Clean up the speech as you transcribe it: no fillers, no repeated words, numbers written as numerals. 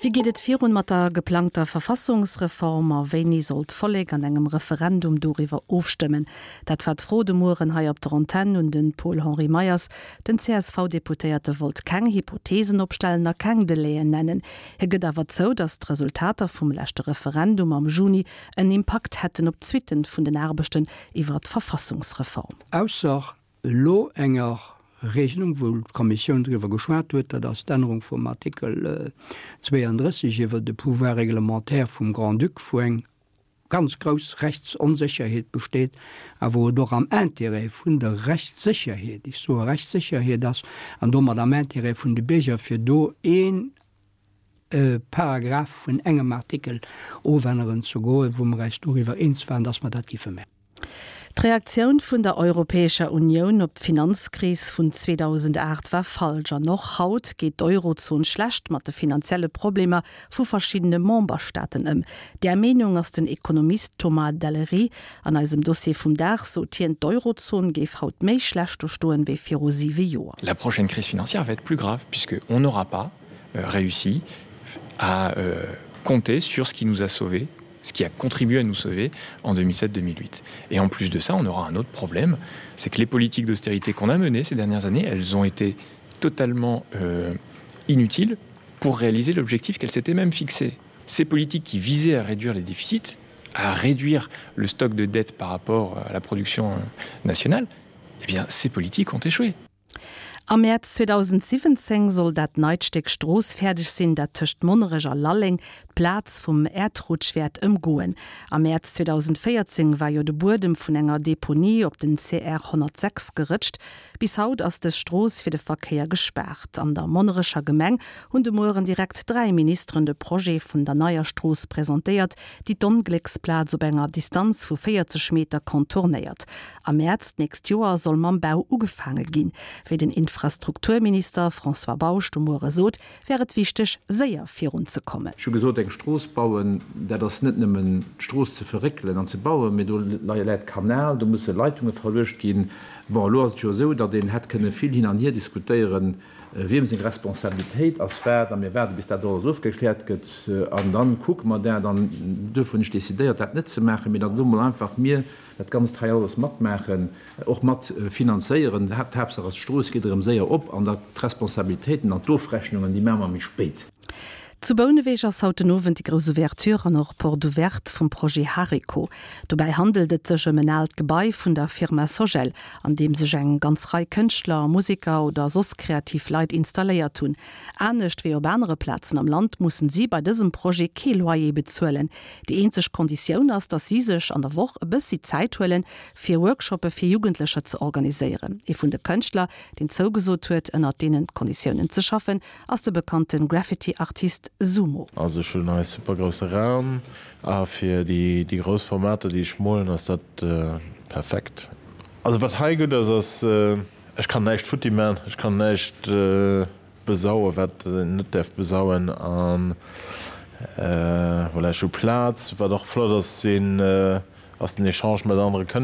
Wéi geet et virun mat der geplangter Verfassungsreform a wéini soll d'Vollek an engem Referendum doriwwer ofstëmmen? Dat war d'Fro de Mueren hei op der Antenn un de Paul-Henri Meyers. Den CSV-Deputéierte wollt keng Hypotheesen opstellen a keng Delaien nennen. Hie gëtt awer zou, datt d'Resultater vum leschte Referendum am Juni en Impakt hätten op d'Suitten vun den Aarbechten iwwer d'Verfassungsreform. Ausser elo enger Regelung, wou d'Kommissioun driwwer geschwat huet, dat ass d'Ännerung vum Artikel 32 iwwer de Pouvoir réglementaire vum Grand-Duc, wou eng ganz grouss Rechtsonsécherheet besteet a wou et och am Intérêt vun der Rechtssécherheet, ech soe Rechtssécherheet ass, an domat am Intérêt vun de Bierger, fir do een Paragraph vun engem Artikel ofänneren ze goen, wou mer eis doriwwer eens waren, dass mer dat giffe maachen. D'Reaktioun vun der Europäescher Unioun op d'Finanzkris vun 2008 war falsch an och haut geet d'Eurozon schlecht mat de finanzielle Problemer vu verschiddene Memberstaaten ëm. Där Meenung ass den Ekonomist Thomas Dallery. An eisem Dossier vum Dag sot hien, d'Eurozon géif haut méi schlecht do stoen, wéi viru siwe Joer. La prochaine crise financière va être plus grave puisque on n'aura pas réussi à compter sur ce qui nous a sauvés, ce qui a contribué à nous sauver en 2007-2008. Et en plus de ça, on aura un autre problème, c'est que les politiques d'austérité qu'on a menées ces dernières années, elles ont été totalement euh, inutiles pour réaliser l'objectif qu'elles s'étaient même fixé. Ces politiques qui visaient à réduire les déficits, à réduire le stock de dettes par rapport à la production euh, nationale, eh bien ces politiques ont échoué. Am Mäerz 2017 soll dat neit Stéck Strooss fäerdeg sinn, dat tëscht Monnerech a Lalleng d'Plaz vum Äerdrutsch wäert ëmgoen. Am Mäerz 2014 war jo de Buedem vun enger Deponie op den CR 106 gerëtscht. Bis haut ass dës Strooss fir de Verkéier gespaart. An der Monnerecher Gemeng hunn de Mueren direkt 3 Ministeren de Projet vun der neier Strooss presentéiert, déi d'Onglécksplaz op enger Distanz vu 40 Meter contournéiert. Am Mäerz d'nächst Joer soll mam Bau ugefaange ginn. Wéi den Infrastrukturminister François Bausch de Muere sot, wär et wichteg, séier virun ze kommen. Ech hu gesot, eng Strooss bauen, dat ass net nëmmen d'Strooss ze verréckelen an ze bauen, mee do läit Kanal, do musse Leitunge verluecht ginn. Bon, elo ass et jo esou, datt een hätt kënne vill hin an hier diskutéieren, wiem seng Responsabilitéit ass wat, a mir waarde bis dat alles ofgekläert gëtt an da kucke mer dat. An duerfir hunn ech decidéiert, dat net ze maachen, mee datt elo mol einfach mir dat Ganzt hei alles matmaachen, och mat finanzéieren. D'Haaptsaach ass, d'Strooss geet erëm séier op an da d'Responsabilitéiten an d'Ofrechnungen, déi maache mer méi spéit. Zu Bouneweg ass haut den Owend déi grouss Ouverture an och Porte ouverte vum Projet Hariko. Dobäi handelt et sech ëm en aalt Gebai vun der Firma Sogel, an deem sech eng ganz Rei Kënschtler, Museker oder soss kreativ Leit installéiert hunn. Anescht wéi op anere Plazen am Land mussen si bei dësem Projet kee Loyer bezuelen. Déi eenzeg Konditioun ass, datt si sech an der Woch e bëssi Zäit huelen, fir Workshoppe fir Jugendlecher ze organiséieren. Ee vun de Kënschtler, deen zougesot huet, ënnert deenen Konditiounen ze schaffen, ass de bekannte Graffiti-Artist Sumo. Also ech hunn hei super grousse Raum a fir déi grouss Formater déi ech molen ass dat perfekt. Also wat hei gutt ass, ass ech kann näischt futti man, ech kann näischt besauen, wat een net däerf besauen an voilà, ech hu Plaz. Wat och flott ass, sinn ass den Echange mat anere Kënschtler.